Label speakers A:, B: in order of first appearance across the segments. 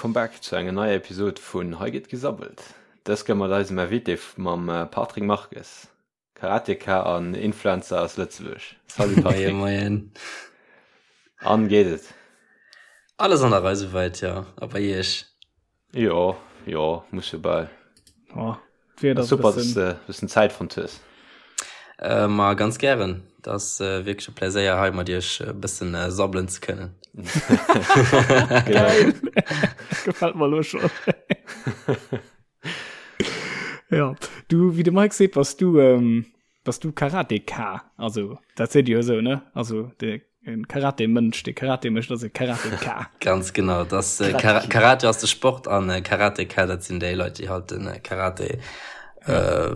A: Welcome back zu enger neier Episode vun Hei gëtt gesabbelt. Dës Kéier mat eisem Invité mam Patrick Marques, Karateka an Influencer aus Lëtzebuerg. Salut Patrick.
B: Moien, moien.
A: An, geet et?
B: Alles an der Rei souwäit, jo. A bei Iech?
A: Jo, jo, muss jo bal.
C: Oh, d'Wieder
A: ass super, dass de bëssen Zäit fonnt hues.
B: Äh, ma ganz gären. Dat ass äh, wierklech e Pläséier hei mat iech e bëssen äh, sabbelen ze kënnen.
C: Geil. Gefällt mer lo schon. ja, du, wéi de Mike seet, bass du, ähm, Bass du Karateka? Also dat seet Dir jo esou, ne? Also de Karate-Mënsch, dee Karate mécht, ass e Karateka.
B: Ganz genau, das äh, Kar Karate ass de Sport an äh, Karateka, dat sinn déi Leit, déi halt den äh, Karate äh,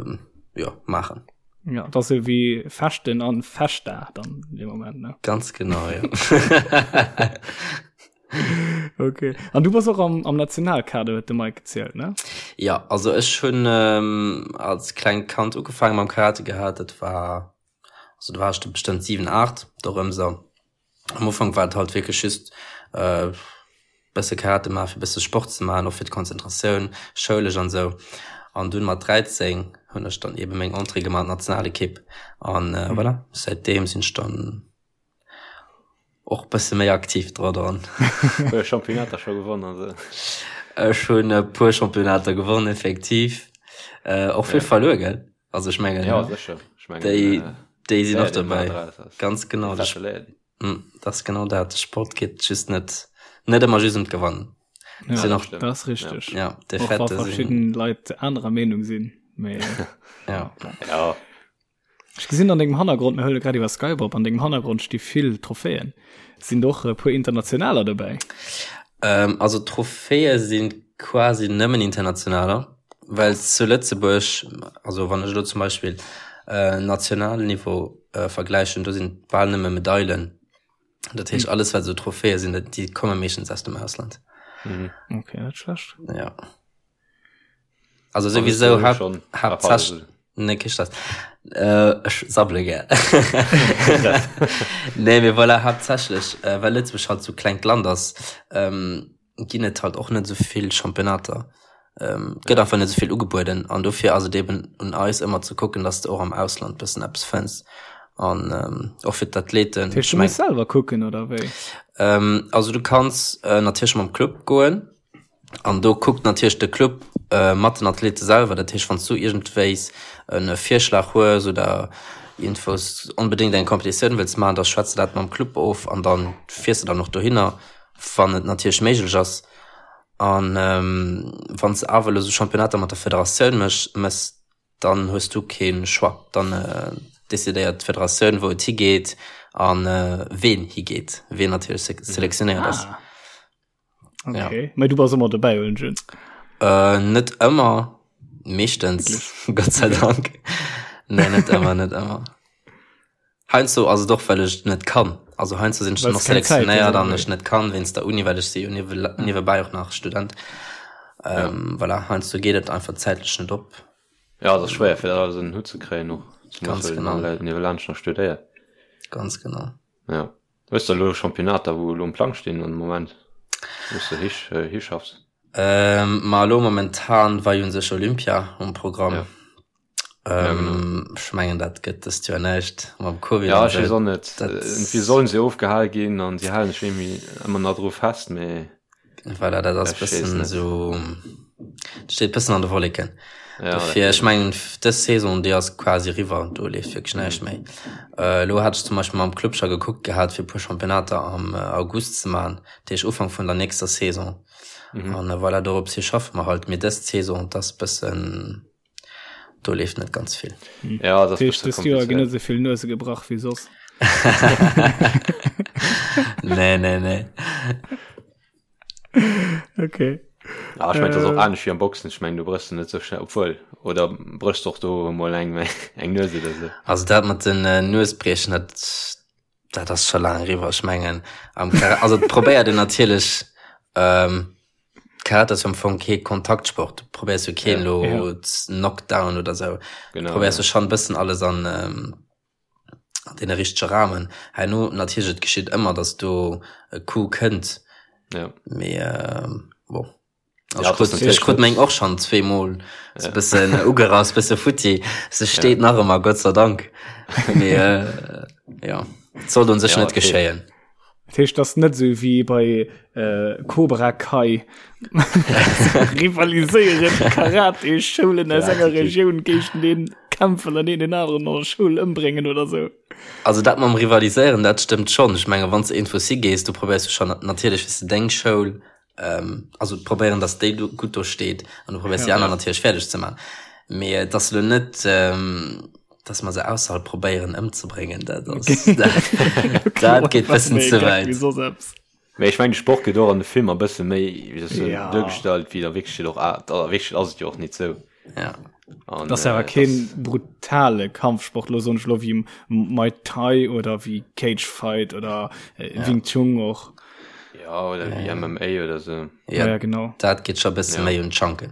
B: ja, maachen.
C: Ja, dat ass esou wéi Fechten an Fechta dann an deem Moment, ne?
B: Ganz genau, ja.
C: Okay. An du bass och am, am Nationalkader, huet de Mike gezielt, ne?
B: Ja, also ech hunn ähm, als klengt Kand ugefaange mam Karate gehat. Dat war, also do war ech bestëmmt 7, 8, dorëms esou. Am Ufank war et halt wierklech just äh, bësse Karate maachen, fir bësse Sport ze maachen, och fir d'Konzentratioun, schoulesch an esou. An dunn mat 13 hunn ech dann eben meng Entrée gemaach an d'Nationalekipp. An äh, voilà, säitdeem sinn ech dann Och bësse méi aktiv dra dran.
A: Puer Championnater scho gewonnen an esou.
B: Ech hunn e puer Championnater gewonnen, effektiv. Äh, och vill ja. verluer, gell? Also ech mengen,
A: ja, sécher. Ech mengen,
B: déi, äh, déi sinn och dobäi. Ganz genau. Dat mm, ass genau dat. De Sport geet just net, net ëmmer just ëm d'Gewannen.
C: Ja, sinn och, dat ass richteg.
B: Ja,
C: och wa verschidden Leit anerer Meenung sinn. Mee,
B: ja.
A: ja.
C: Ech gesinn an dengem Hannergrond, mir huele grad iwwer Skype op, an dengem Hannergrond sti vill Trophäen. Sinn do och e puer internationaler dobäi?
B: Ähm, also Trophäe si quasi nëmmen internationaler, well zu Lëtzebuerg, also wann ech elo zum Beispill äh, nationalen Niveau äh, vergläichen, do sinn bal nëmme Medailen. Dat heescht, alles wat esou Trophäe sinn, déi komme meeschtens aus dem Ausland.
C: Mhm. Okay, net schlecht.
B: Ja. Also sowieso hab, hauptsächlich ne kee Stress. Äh, ech sabbele gär. Nee, mee voilà, haaptsächlech, äh, well Lëtzebuerg halt sou klengt Land ass, ähm, ginn et halt och net sou vill Championnater. Ähm, gëtt einfach net sou vill ugebueden an dofir ass et eben un eis ëmmer ze kucken, dass de och am Ausland bëssen eppes fënns an ähm, och fir d'Athleten.
C: Dat heescht, du muss selwer kucken oder wéi?
B: Ähm, also du kanns äh, natierlech mam Club goen. An do kuckt natierlech de Club mat den Athlete selwer. Dat heescht, wann s du iergendwéis e Virschlag hues oder iergendwous onbedéngt eng Competitioun wëlls maachen, da schwätz de dat mam Club of an da fiers de dann och dohinner, wann et natierlech méiglech ass. An wann s de awer elo sou Championnater mat der Federatioun méchs, dann hues du kee Choix. Dann decidéiert d'Federatioun, wou et higeet a ween higeet, ween natierlech selektionéiert ass.
C: Okay. Ja. Mä du bass ëmmer dobäi hunn ech.
B: Äh, net ëmmer, meeschtens, Gott sei Dank. Nee, net ëmmer, net ëmmer. Heiansdo ass et och, well ech net kann. Also heiansdo sinn ech dann och selektionéiert an ech net kann wéinst der Uni, well ech si jo niewebäi och nach Student. Ähm, voilà, heiansdo geet et einfach zäitlech net op.
A: Ja, et ass schwéier fir dat alles ënner den Hutt ze kréien och,
B: Ganz
A: genau.
B: Niewelaanscht
A: nach studéiert.
B: Ganz genau.
A: Ja. Hues de elo Championnater wou elo um Plang stinn an de Moment wou s de hi hischaffs?
B: Ähm, ma elo momentan war jo un sech Olympia um Programm.
A: Ja. Ja, genau.
B: Ähm, ech mengen dat gëtt dëst Joer näischt mam Covid
A: Ja,
B: an
A: ech weess
B: esou.
A: och net.
B: Dat
A: Irgendwie sollen se ofgehal ginn an si halen sech irgendwie ëmmer nach dru fest, mee
B: Voilà, dat ass
A: ech weess
B: bëssen
A: net.
B: esou, steet bëssen an de Wolleken.
A: Ja, dat
B: Dofir, ech
A: geet.
B: mengen dës Saison déi ass quasi eriwwer, do leeft wierklech näischt méi. Äh, elo hat ech zum Beispill mam Club scho gekuckt gehat fir e puer Championnater am August ze maachen, dat heescht Ufank vun der nächster Saison.
A: Mhm.
B: An voilà, dorops hi schaffe mer halt. Mee dës Saison, dat ass bëssen, do leeft net ganz vill.
A: Ja, dat ass
C: Dat heescht,
A: bësse
C: dëst Joer ginn net
A: komplizéiert.
C: esou vill Nuese gebrach wéi soss.
B: Nee, nee, nee.
C: Okay.
A: Ja, ech mengen, dat ass och
C: Äh.
A: anescht wéi am Boxen. Ech mengen, do bréchs de net sou schnell, obwuel, oder bréchs de och do emol eng, eng Nues oder sou?
B: Also dat mat den äh, Nuesbriechen, dat, dat ass scho laang eriwwer. Ech mengen, am Kara also et probéiert een natierlech, ähm, Karate ass jo am Fong kee Kontaktsport. Du probéiers jo keen
A: Ja.
B: lo
C: Ja.
B: z Knockdown oder sou. Du
A: Genau,
B: probéiers
A: ja.
B: jo schon bëssen alles an, ähm, an dee richtege Rahmen. Herno natierlech, et geschitt ëmmer, datt do e Coup kënnt.
A: Ja.
B: Mee, ähm, bon. Ja, ech krut, ech krut meng och schon zweemol so bëssen ugerass, bësse futti. Se steet nach ëmmer, Gott sei Dank. Mee äh, ja, et sollt un sech
A: Ja,
B: net
A: okay.
B: geschéien.
C: Dat heescht, das net sou wéi bei äh, Cobra Kai rivaliséieren Karate-Schoulen aus enger Regioun géinteneen kämpfen an een den aneren an der Schoul ëmbréngen oder sou.
B: Also dat mam Rivaliséieren, dat stëmmt schonn. Ech menge wann s de iergendwou si gees, du probéiers jo schonn natierlech, wéi s de deng Schoul ähm, also probéieren, dass déi do gutt do steet an du probéiers déi aner natierlech fäerdeg ze man. Mee et ass elo net, ähm, dass mer se ausserhalb probéieren ëmzebréngen, dat ass dat, dat geet bëssen ze wäit.
A: Mee ech mengen de Sport gëtt och an de Filmer e bësse méi, wéi soll ech soen,
C: Ja.
A: duergestallt wéi et a Wierklechkeet och a a Wierklechkeet ass et jo och nit sou.
B: Ja.
A: An,
C: Das ass awer
A: äh,
C: keen
A: das-
C: brutale Kampfsport, lo soen ech lo wéi Muay Thai oder wéi Cage Fight oder äh,
B: Ja.
C: Wing Chun och.
A: Ja, oder wéi MMA oder sou.
B: Ja,
C: Ja, ja genau.
B: dat geet scho bësse
A: Ja.
B: méi un d'Schanken.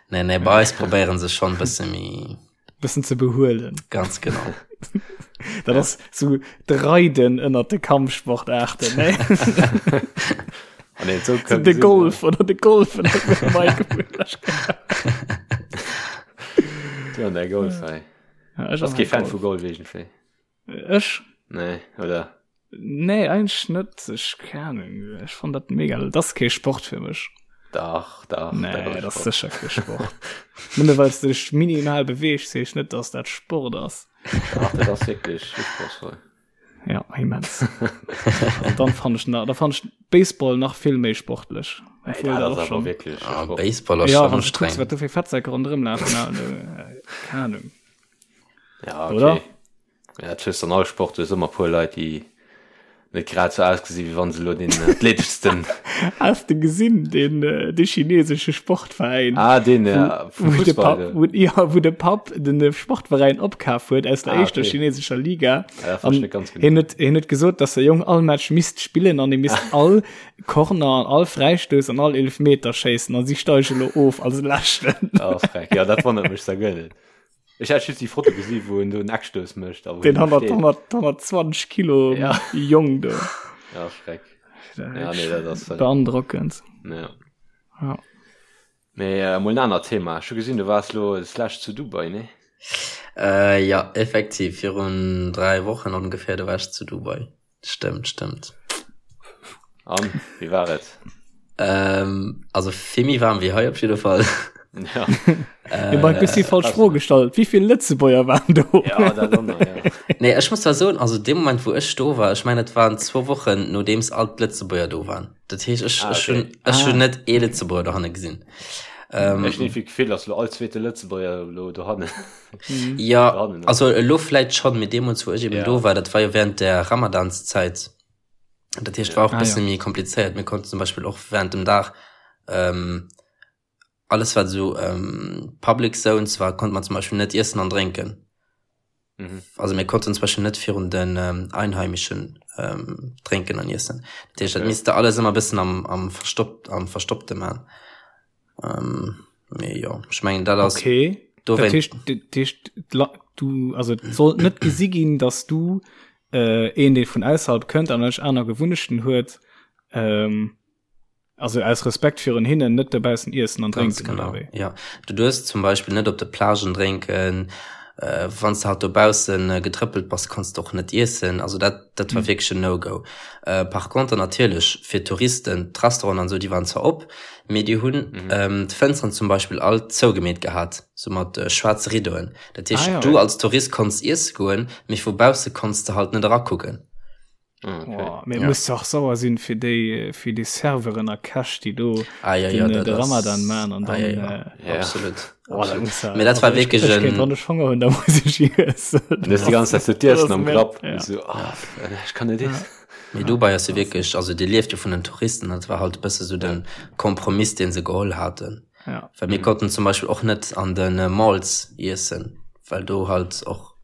B: Nee, nee, bei eis probéieren se schonn bësse méi
C: Bëssen ze behuelen.
B: ganz genau.
C: Dat ass sou d'Reiden ënnert de Kampfsportaarten, ne?
A: Ah, nee, sou
C: So
A: kënnt
C: de
A: sinn,
C: Golf oder de Golf ënnert de Mike.
A: Ja, der Golf, ey.
C: Ja, ech
A: Bass
C: ass
A: kee Fan vu Golf iergendwéi?
C: Ech?
A: Nee, oder?
C: Nee, eigentlech net. Ech, keng Ahnung, ech fann dat mega, dat ass kee Sport fir mech.
A: Dach, dach.
C: Nee, dat ass sécher kee Sport. Nëmme well s de dech minimal beweegs, heescht net, dass dat Sport ass.
A: Dach, dat ass wierklech usprochsvoll.
C: Ja, immens. An dann fann ech na, da fann ech Baseball nach vill méi sportlech.
A: Ey, dat ass awer wierklech
B: Ah,
A: Sport.
B: Baseball ass
C: Ja,
B: schon
C: wann du kucks,
B: anstrengend.
C: wat do fir Fettsäck ronderëm lafen, na, äh, keng Ahnung.
A: Ja, okay.
C: Oder?
A: Ja, dat hues an all Sport, du hues ëmmer puer Leit, déi net grad sou ausgesi wéi wann se elo den athleteschsten.
C: Has de gesinn den äh, de chinesesche Sportveräin?
A: Ah, den ja, vum
C: Wou de
A: Fussball,
C: Papp,
A: de.
C: wou, ja, wou de Papp den äh, Sportveräin opkaf huet aus der
A: Ah,
C: éischter
A: okay.
C: chinesescher Liga.
A: Ja, dat
C: An
A: verstehe ich ganz genau.
C: hien huet, hien huet gesot, dass der Jong all Match misst spillen an hie misst all Corner an all Fräistouss an all Eelefmeter schéissen an si steige lo of als Leschten.
A: Ah, freck. Ja, dat wonnert mech da guer net. Ech hat just déi Foto gesi wou en do en Eckstouss mécht a wou
C: Den
A: en do
C: 100,
A: steet.
C: 100, 120 Kilo
A: Ja.
C: Jong do.
A: Ja, Schreck. Ja, nee, dat ass
C: Beandrockend.
A: Ja.
C: Ja.
A: Mee äh, mol en anert Thema. Ech hu gesinn, du waars lo d'lescht zu Dubai, nee?
B: Äh, ja, effektiv, virun 3 Wochen ongefähr, do war ech zu Dubai. Stëmmt, stëmmt.
A: An, wéi war et?
B: Ähm, also vill méi waarm wéi hei op jidde Fall.
A: Ja.
C: Äh, Mike, du hues déi falsch Fro gestallt. Wéi vill Lëtzebuerger waren do?
A: Ja, dat och nach, ja.
B: Nee, ech muss zwar soen, also dee Moment wou ech do war, ech mengen et waren zwou Wochen nodeems all d'Lëtzebuerger do waren. Dat heescht ech,
A: Ah,
B: ech hunn,
A: okay.
B: ech hunn
C: Ah.
B: net ee Lëtzebuerger dohanne gesinn. Ähm,
A: Ech hunn iergendwéi d'Gefill, dass lo all zweete Lëtzebuerger lo dohannen.
B: Ja,
A: Dohannen ass.
B: also elo vläit schonn, mee deemools wou ech eben
A: Ja.
B: do war, dat war jo während der Ramadanszäit. Dat heescht, war och
C: Ah,
B: bësse
C: ja.
B: méi komplizéiert. Mir konnten zum Beispill och während dem Dag ähm, alles wat esou ähm, Public Zones war, konnte man zum Beispill net iessen an drénken.
A: Mhm.
B: Also mir konnten zum Beispill net virun den ähm, Einheimischen ähm, drénken an iessen. Dat heescht, dat
A: Okay.
B: misst de alles ëmmer bëssen am, am verstoppt, am Verstoppte man. Ähm, mee jo, ech mengen dat ass
C: Okay.
B: do
C: Dat
B: wéint
C: heescht, dat heescht, d'La- du, also et sollt net gesi ginn, dass du äh, een, dee vun ausserhalb kënnt an ech aner Gewunnechten huet, ähm, also aus Respekt virun hinnen net dobaussen iessen an
B: Ganz
C: drénken oder
B: genau,
C: wéi?
B: ja. Du duerfs zum Beispill net op de Plagen drénken, äh, wann s de halt dobaussen äh, getrëppelt bass, kanns de och net iessen. Also dat, dat war
C: Mhm.
B: wierklech en No-Go. Äh, par contre natierlech fir Touristen, d'Restauranten an esou, déi waren zwar op, mee déi hunn
A: Mhm.
B: ähm, d'Fënsteren zum Beispill all zougemeet gehat, sou mat äh, schwaarze Rideauen. Dat
C: Ah
B: heescht,
C: ja.
B: du als Tourist konns iesse goen, mee vu bausse konns de halt net erakucken.
A: Ah, okay.
C: Oh, mee
B: Ja.
C: muss dach sauer sinn fir déi fir déi Serveuren a Käch, déi do
B: Ah ja,
C: den,
B: ja,
C: äh,
B: dat
C: de
B: ass
C: Ramadan man an
B: ah,
C: dann
B: ja, ja.
C: äh,
A: Ja.
B: Absolut.
C: oh, dat
B: Absolut.
C: muss ja,
B: Mee dat
C: also
B: war
C: ech,
B: wierklech
C: ech kéint
B: en
C: wann ech Honger hunn, da muss ech iessen.
A: Du hues déi ganz Zäit so
C: Dat
A: d'Iessen
C: ass
A: am
C: mir
A: Grapp.
C: ja.
A: So, ah, ech kann net
C: Ja.
A: iessen.
B: Mee Dubai ass jo wierklech, also dee lieft jo vun den Touristen, dat war halt e bësse sou
A: Ja.
B: de Kompromiss, dee se geholl haten.
C: Ja.
B: Well mir
A: Mhm.
B: konnten zum Beispill och net an de Malls iessen, well do halt och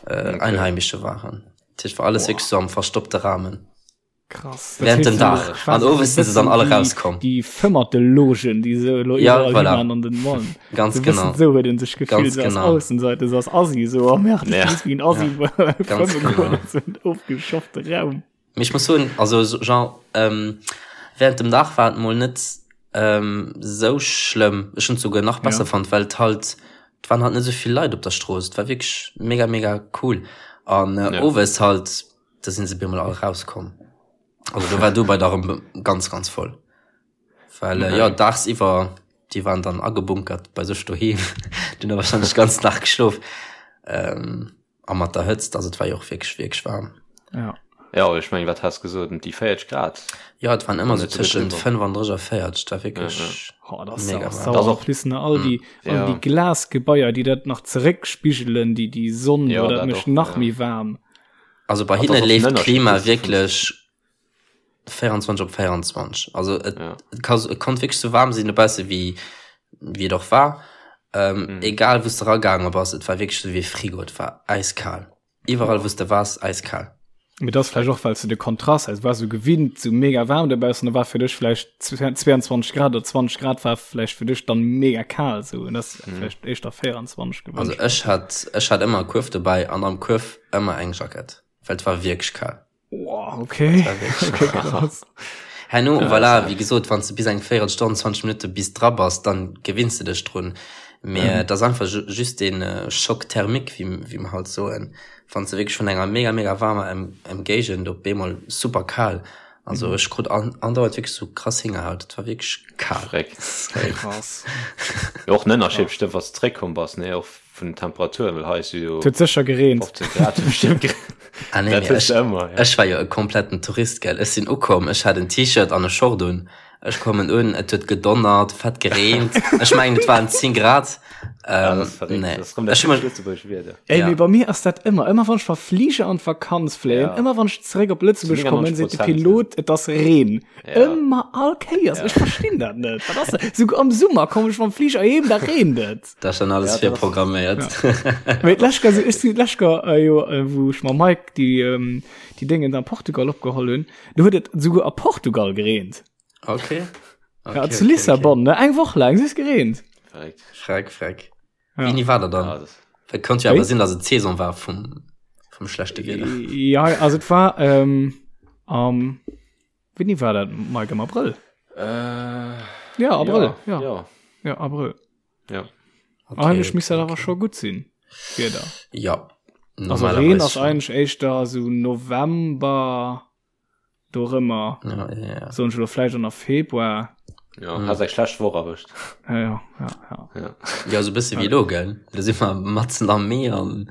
B: äh,
A: Okay.
B: Einheimische waren. Dat heescht, war alles
C: Boah.
B: wierklech sou am verstoppte Rahmen.
C: Krass. Dat
B: Während
C: heescht
B: dem
C: so
B: Dag. An
C: quasi so
B: owes sinn se dann
C: bëssen
B: alle
C: déi
B: rauskomm.
C: déi Fëmmertelogen, déi se elo
B: Ja,
C: iwwerall
B: voilà.
C: himan an den Mallen.
B: Ganz
C: So bëssen
B: genau.
C: sou huet een sech gefillt,
B: Ganz
C: so als
B: genau.
C: Aussenseiter, so als Assi, so oh merde, ech
A: Ja.
C: muss wéi en Assi
B: Ja. Ganz
C: fëmme goen
B: genau.
C: an so en ofgeschoffte Raum.
B: Mee ech muss soen, also so genre, ähm, während dem Dag war et mol net. Ähm, sou schlëmm. Ech hunn et souguer nach besser ja. fonnt, well et halt, et waren halt net sou vill Leit op der Strooss. Et war wierklech mega, mega cool. An äh, ja. owes halt, da sinn se bemol all rauskomm. Also do war Dubai da rëm ganz, ganz voll. Well äh, ja, dagsiwwer, déi waren dann agebunkert bei sech doheem. Déi hunn da wahrscheinlech ganz Dag geschlof. Ähm, A mat der Hëtzt, also et war jo och wierklech, wierklech waarm.
A: Ja. Ja, ech mengen, wat has gesot, ëm déi 40 Grad?
B: Ja, et waren ëmmer sou tëschent 35 a 40, et war wierklech ja, ja.
C: Oh, das mega warm. Das och plus all die, mm. all ja. die Glasgebaier, déi dat nach zeréckspigelen, déi die Sonn, ja, dat mécht nach ja. méi waarm.
B: Also bei hinne leeft d'Klima wierklech 24 op 24. Also et, ja. et, kann, et konnt wierklech sou waarm sinn dobausse wéi wéi et och war. Ähm, mhm. Egal wou s de ragaange bass, et war wierklech sou wéi e Frigo, et war äiskal. Iwwerall wou s de waars, äiskal.
C: Mee dat ass vläicht och well s de de Kontrast, also war sou gewinnt sou mega waarm dobaussen, da war fir dech vläicht 22 Grad oder 20 Grad war vläicht fir dech dann mega kal sou und das mhm. vläicht éischter 24
B: gewënscht. Also ech hat ech hat ëmmer e Kuerf dobäi an am Kuerf ëmmer eng Jackett, well et war wierklech kal.
C: Wow, okay. okay
B: krass. Herno, ja, voilà, wie gesot, wann du bis eng Véierelstonn, 20 Minutte bis dra bass, dann gewinns du dech drun. Mee mhm. dat ass einfach just den äh, Schock thermique, wie, wie mer halt soen. Wann du wierklech vun enger mega, mega warmer Emgéigend op eemol super kal. Also mhm. ech krut an, andauernd wierklech so krass Hingerhaut. Et war wierklech kal.
A: Krass. Och en Ënnerscheed bestimmt, was zréckkomm bass, ne? Och vun den Temperaturen, well hei ass jo
C: Et huet sécher gereent.
A: 15 Grad bestimmt gereent.
B: Ah, nee,
A: Dat
B: mee
A: hues
B: ech,
A: de ëmmer, ja.
B: ech war jo e kompletten Tourist, gell. Ech sinn ukomm, ech hat en T-Shirt an e Short un. Ech kommen un, et huet gedonnert, fett gereent. Ech mengen, et waren 10 Grad.
A: Ja,
B: Ähm,
A: dat ass verréckt.
B: nee.
A: Dat ass rëm dat
B: Ech hu mech,
A: typescht Lëtzebuergesch Wieder.
C: Ey,
B: ja.
C: mee bei mir ass dat ëmmer, ëmmer wann ech verfliger an d'Vakanz fléien,
A: Ja.
C: ëmmer wann ech zeréck op Lëtzebuerg
A: Zu
C: kommen, seet de
A: 99%, ja.
C: Pilot, et ass Reen.
A: Ja.
C: Ëmmer all Kéiers.
A: Ja.
C: Ech verstinn dat net. Wat ass dat? Souguer am Summer komm ech mam Fliger heem, da reent et.
B: Dat ass schon alles
A: Ja, dat ass-
B: virprogramméiert.
C: Mee d'lescht Kéier, ech sinn d'lescht Kéier, äh, jo, äh, wou ech mam Mike déi, ähm, déi Déngen an Portugal opgeholl hunn, do huet et souguer a Portugal gereent.
B: Okay. okay
C: Ja, zu Lissabon, ne? Eng Woch laang, es gereent.
A: Verréckt.
B: Freck, freck.
C: Ja.
B: Wéini war dat dann?
A: Ja, das,
B: Et konnt jo
C: Wéi?
B: awer sinn, dass et d'Saison war vum, vum schlechte Wieder.
C: Ja, also et war ähm, am Wéini war dat Mike am Abrëll?
A: äh,
C: Ja, Abrëll.
A: Ja,
C: Ja,
A: ja.
C: ja Abrëll.
A: ja.
B: Okay,
C: Eigentlech misst dat
B: okay,
C: awer
B: okay.
C: scho gutt sinn. Wieder.
B: Ja.
C: Also Reen ass eigentlech éischter sou November dorëmmer.
B: Ja, ja, ja.
C: Soen ech elo vläicht och nach Februar.
A: Ja, mm. has eng schlecht Woch erwëscht.
C: Ja, ja, ja, ja.
A: Ja.
B: Ja, so bësse wéi elo, gell? Da si mer matzen am Mee an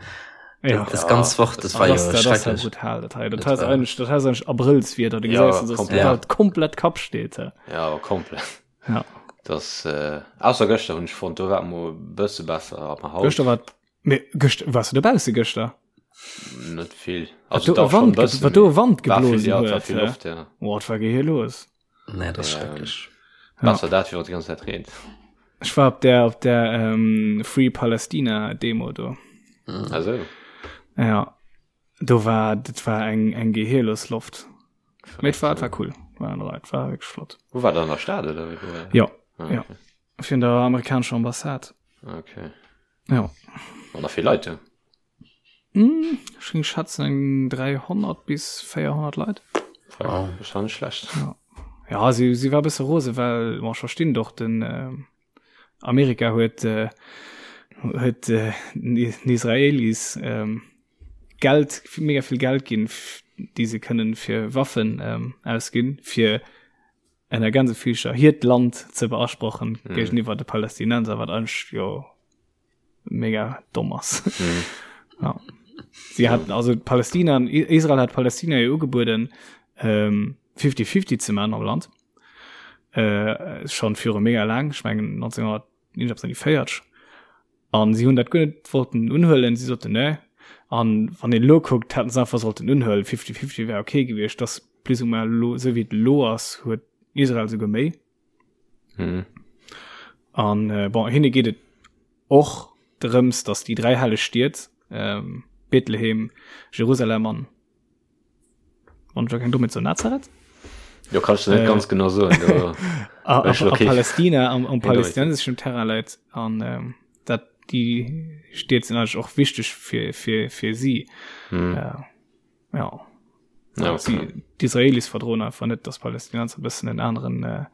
C: Ja.
B: das ganz Woch, das war
C: Ah, das,
B: jo
C: das, das ist ja
B: schrecklech.
C: brutal. Dat hei, dat
B: Das
C: heißt
B: war-
C: eigentlich, das heißt eigentlich Abrillswieder. Du
A: Ja,
C: gesäis, dass
A: komplett.
C: die Welt komplett Kapp steht. hä?
A: Ja, komplett.
C: Ja.
A: Das, äh, ausser gëschter hunn ech fonnt, do war et mol e bësse besser, aber haut
C: Gëschter war, mee gëschter, warst du dobausse gëschter?
A: net vill.
C: Wat
A: Also
C: do
A: dach
C: e
A: schon
C: Wand,
A: e bëssen,
C: wat do e
A: mee
C: Wand
A: war vill,
C: geblosen
A: ja, et war
C: huet.
A: vill
C: hä?
A: Loft, ja.
C: Boah, wat war hier los?
B: Nee, das ist
A: Ähm,
B: schrecklech.
C: Ja.
A: Besser dat, wéi wann et déi ganz Zäit reent.
C: Ech war op der, op der ähm, Free Palestina Demo do.
B: Mhm.
A: Also,
C: Ja. Do war, dat war eng, eng gehirlos Loft. Mee et war, et war cool. War, et war wirklich flott.
A: Wo war dat an der Stad oder wéi? Wo war dat?
C: Ja,
A: Ah,
C: ja.
A: okay.
C: Virun der amerikanescher Ambassade.
A: Okay.
C: Ja.
A: Waren da vill Leit do?
C: Hm, ech géing schätzen eng 300 bis 400 Leit.
B: Wow.
A: Das war nicht schlecht.
C: Ja, ja si, si war e bësse rose, well bon, ech verstinn doch den äh, Amerika huet äh, huet äh, den Israelis ähm, Geld mega vill Geld ginn, déi se kënnen fir Waffen ähm, ausginn, fir ënner Gänsefüßcher hiert Land ze beasprochen mm. géigeniwwer de Palästinenser, wat eigentlech jo mega domm ass. Mm. ja. Sie hat also Palästina Israel hat Palästina jo ugebueden ähm, 50-50 ze man am Land. Äh, schon viru mega lang, ich mengen 1949. An si hunn dat guer net wollten unhuelen, si soten nee. An wann een elo kuckt, hätten se einfach sollten unhuelen, fifty-fifty wär okay gewiescht. Dass plus ou moins elo, esou wéi et elo ass, huet Israel souguer méi.
A: Mhm.
C: An äh, bon, hinne geet et och drëms, dass déi dräi helleg Stied, ähm, Bethlehem, Jerusalem an Wann ech keng Dommheet soen, Nazareth?
A: Jo, kannst du net
C: Äh,
A: ganz genau soen. Do,
C: a, a,
A: Ech
C: a
A: okay.
C: Palästina am, am
A: Eindeutig.
C: palästinenseschen Terrain läit an ähm, dat déi Stied sinn eigentlich och wichteg fir fir fir si.
A: hm.
C: Äh, ja.
A: Ja,
C: Sie,
A: okay.
C: d'Israelis verdroen einfach net, dass Palästinenser bëssen en aneren äh,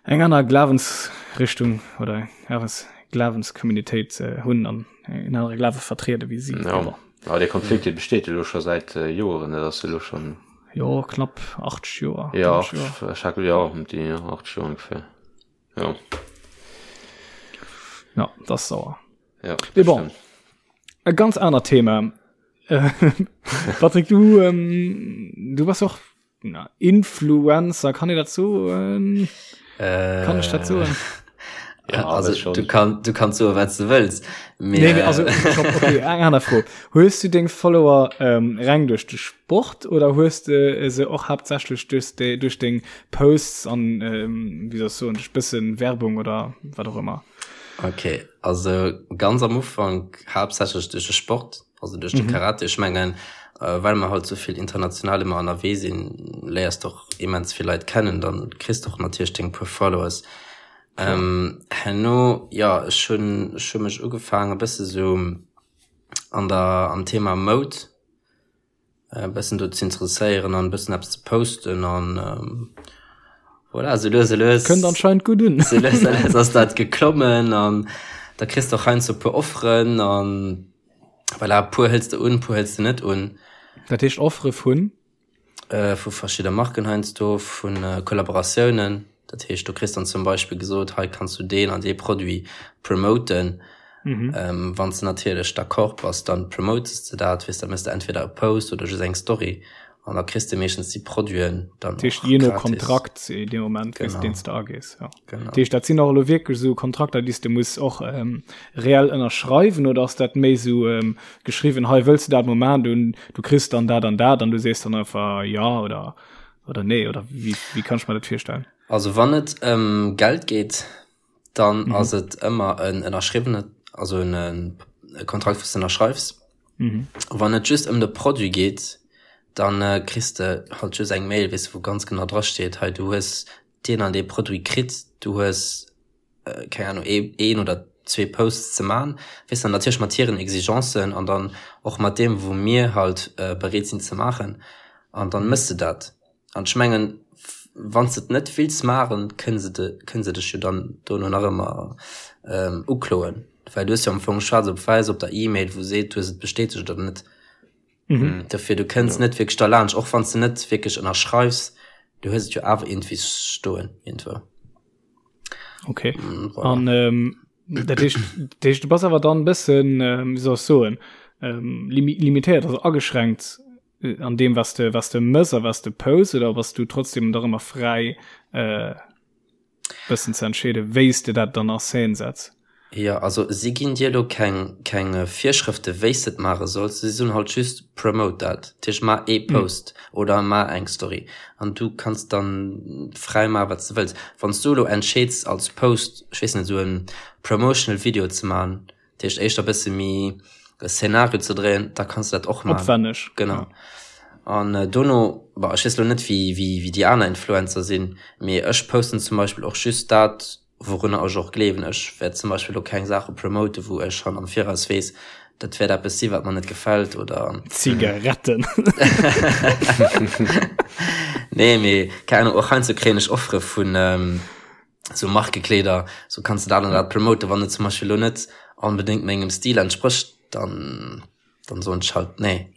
C: Eng aner Glawensrichtung oder eng Glawenskommunitéit hunn an en anere Glawe vertriede wéi si.
A: Ja. Bon. Ja, dee Konflikt dee besteet elo scho säit Joeren, dat ass elo schonn.
C: Jo, knapp 80 Joer.
A: Ja, 80 Joer. Ja, ëm déi 80 Joer ongeféier. Ja.
C: Ja, dat ass sauer.
A: Ja,
C: Mee bon, e ganz anert Thema. Patrick, du, ähm, du bass och Na, Influencer, kann ee dat soen?
B: Äh,
C: Kann ech dat soen?
B: Ja, also, schon. du, kann, du kannst soen, wat du wëlls.
C: Mee, nee, nee, also, stopp, okay, eng aner Fro. Hues du deng Follower ähm, reng duerch de Sport oder hues de se och haaptsächlech duerch de, duerch deng Posts an, ähm, wéi soll ech soen, duerch bëssen Werbung oder wat och ëmmer?
B: Okay, also ganz am Ufank haaptsächlech duerch de Sport. Also duerch de Karate, ech mengen, well mer halt souvill international ëmmer ënnerwee sinn, léiers de och immens vill Leit kennen, dann kriss de och natierlech deng puer Followers. Herno, jo, ech hunn, ech hu mech ugefaangen e bësse sou an der, am Thema Moud e bëssen do ze interesséieren an e bëssen eppes ze posten an voilà, sou lues a lues.
C: Kënnt anscheinend gutt un.
B: Sou lues a lues ass dat geklommen an da kriss de och heiansdo e puer Offeren an voilà, e puer hëls de un, e puer hëls de net un.
C: Dat heescht Offere vun?
B: Vu verschidde Marken heiansdo, vu Kollaboratiounen. Dat heescht, du kriss dann zum Beispill gesot, hei kanns du deen an dee Produit promoten. Mhm. Ähm, wann s de natierlech d'accord bass, dann promotest de dat, weess, da méchs de entweder e Post oder just eng Story an da kriss de meeschtens déi Produiten
C: dann Dat heescht, je no Kontrakt in dem Moment, wéi s deen s de agees. Ja. Genau. Dat heescht, dat sinn och elo wierklech esou Kontrakter, déi s de muss och ähm, reell ënnerschreiwen oder ass dat méi esou ähm, geschriwwen, hei wëlls de dat Moment un, du kriss dann dat an dat an du sees dann einfach ja oder oder nee oder wéi, wéi kann ech mer dat virstellen?
B: Also wann et ëm Geld geet, dann mhm. ass et ëmmer en ënnerschriwwene also en e Kontrakt wou s de ënnerschreifs. Mhm. Wann et just ëm de Produit geet, dann äh, kriss de halt just eng Mail, weess de, wou ganz genau dra steet, hei du hues deen an dee Produit kritt, du hues äh, keng Ahnung ee, een oder zwee Posts ze man, weess de, natierlech mat hiren Exigencen an dann och mat deem wou mir halt äh, bereet sinn ze maachen an dann mëss de dat. An ech mengen, wann s de et net wills maachen, kënne se de, kënne se dech jo dann dono nach ëmmer ukloen, well du hues jo am Fong schwaarz op wäiss op der E-Mail, wou seet, du hues et bestätegt oder net. Dofir, du kënns net wierklech derlaanscht, och wann s de net wierklech ënnerschreifs, du hues et jo awer iergendwéi stoen iergendwou.
C: Okay. An dat heescht, dat heescht, du bass awer dann e bëssen, wéi soll ech soen, limitéiert, also ageschränkt an deem was de was de mëss a was de post oder bass du trotzdem dach ëmmer fräi äh, bëssen ze entscheede wéis de dat dann a Scène setz?
B: Jo, also si ginn dir elo keng keng Virschrëfte wéis de et maache solls, si soen halt just promote dat, dat heescht maach ee Post oder maach eng Story an du kanns dann fräi maache wat s de wëlls. Wann s du elo entscheeds als Post, ech weess net, esou en promotional Video ze maachen, Dat heescht éischter bësse méi e Szenario ze dréien, da kanns du dat och maachen.
C: Opwänneg.
B: Genau. An äh, dono, bah, ech weess lo net wéi, wéi, wéi déi aner Influencer sinn, mee ech posten zum Beispill och just dat, wourunner ech och gleewen. Ech wäert zum Beispill lo keng Saache promoten, wou ech schonn am Viraus weess, dat wäert eppes si wat mer net gefält oder.
C: Zigaretten.
B: Nee, mee keng Ahnung, och heiansdo kréien ech Offere vun, ähm, sou Markekleeder, sou kanns de dat an dat promoten, wann et zum Beispill lo net onbedéngt mengem Stil entsprécht, dann dann soen ech halt nee.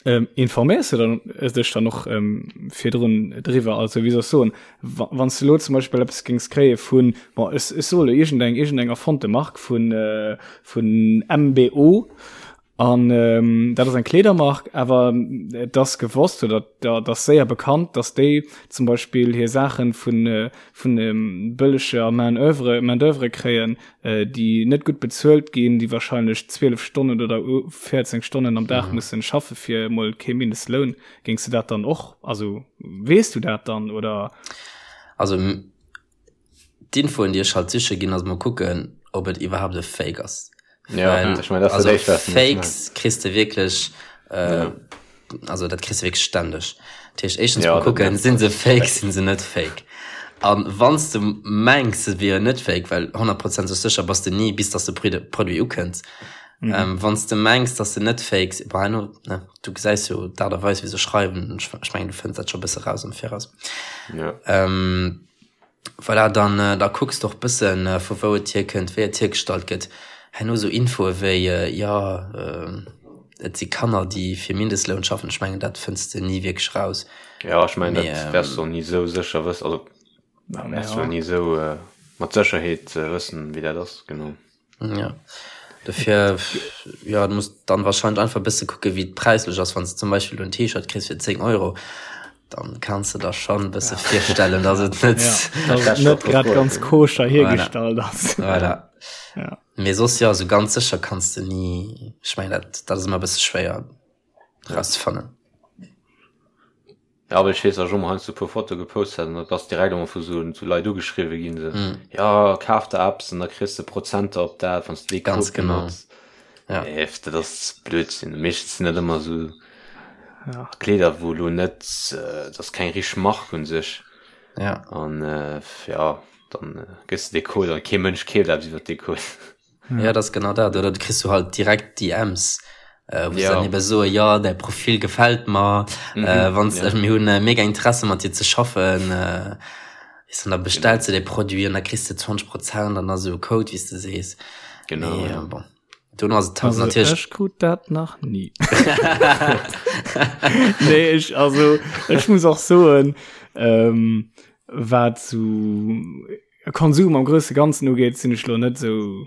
C: Ähm, informéiers du dann äh, dech dann och ähm, virdrun driwwer? Also wéi soll ech soen, wa, wann s du lo zum Beispill eppes géings kréie vun, bon, ech, ech soe lo iergendeng, iergendeng erfonnte Mark vun, äh, vun MBO, An dat ass eng Kleedermark, awer et ass gewosst oder et ass séier bekannt, datt déi zum Beispill hir Saache vun vun bëlleger Main oeuvre, Main d'oeuvre kréien, déi net gutt bezuelt ginn, déi wahrscheinlech 12 Stonnen oder 14 Stonnen am Dag mussen schaffe fir emol kee Mindestloun. Géings de dat dann och, also weess du dat dann oder?
B: Also D'Infoen déi ech halt siche ginn ass mol kucken ob et iwwerhaapt e Fake ass.
A: Ja,
B: Well,
A: ech mein, dat ass
B: also
A: dat éischt, wat du muss
B: Fakes
A: maachen.
B: kriss de wierklech äh,
A: Ja.
B: also dat kriss de wierklech stänneg. Dat heescht éischtens
A: Ja,
B: mol
A: dat
B: kucken,
A: nervt
B: sinn se
A: halt
B: fake,
A: schrecklich.
B: sinn se net fake. An wann s de mengs se wieren net fake, well honnertprozenteg sécher bass de ni bis dass de Produit ukënnt.
C: Mhm.
B: Ähm, wann s de mengs dass se net fake sinn, bon herno, ne, du gesäis jo d'Aart a Weis wéi se schreiwen, ech mengen du fënns dat scho bësse raus am Viraus.
A: Ja.
B: Ähm. Voilà, dann da kucks de och bëssen, vu wou et hierkënnt, wéi et hiergestallt gëtt. Herno sou Infoe wéi, jo, et si Kanner, déi fir Mindestloun schaffen. Ech mengen, dat fënns de ni wierklech raus.
A: Jo, ech mengen, dat wäers de och ni sou sécher wëssen. Also, wäers de ni sou mat Sécherheet wëssen, wéi dat ass, genau.
B: Ja. Dofir, ja, du muss dann wahrscheinlich einfach bësse kucke wéi et präislech ass. Wann s de zum Beispill en T-Shirt kriss fir 10 Euro, dann kanns de der schon bësse ja. virstellen, dass et net
C: ja, dass et net grad ganz koscher hiergestallt ass.
B: Voilà. Ja. Mee soss ja, so ganz sécher kanns de ni, ech meng dat, dat ass ëmmer bësse schwéier rauszefannen.
A: Ja, well ech weess, dass ech och mol heiansdo e puer Fotoe gepost hat an da bass direkt emol vu sou sou Leit ugeschriwwe ginn, sou, mm. ja, kaf der eppes an da kriss de Prozenter op dat, wann s de dee
B: Ganz Code genau. benotz.
A: Ja. Nee, dat ass Blödsinn. Meeschtens sinn dat ëmmer sou ja. Kleeder, wou lo net, äh, dat ass keng richteg Mark un sech.
B: Ja.
A: An äh, ja, dann äh, gëss de dee Code an kee Mënsch keeft eppes iwwer dee Code.
B: Ja, das genau dat oder du kriegst du halt direkt DMs äh, wo ja. dann eben so ja der Profil gefällt mir mhm, äh, wann ja. mir hun äh, mega Interesse mat dir ze schaffen äh, ist dann da bestellst genau. du de Produit und da kriegst du 20 Prozent dann also Code wie du sees
A: genau
B: nee, ja. bon. Du hast es
C: also, natürlich ich krut dat nach nie nee, ich, also ich muss auch soen ähm, wat zu Konsum am grousse Ganzen ugeet, sinn ech lo net sou,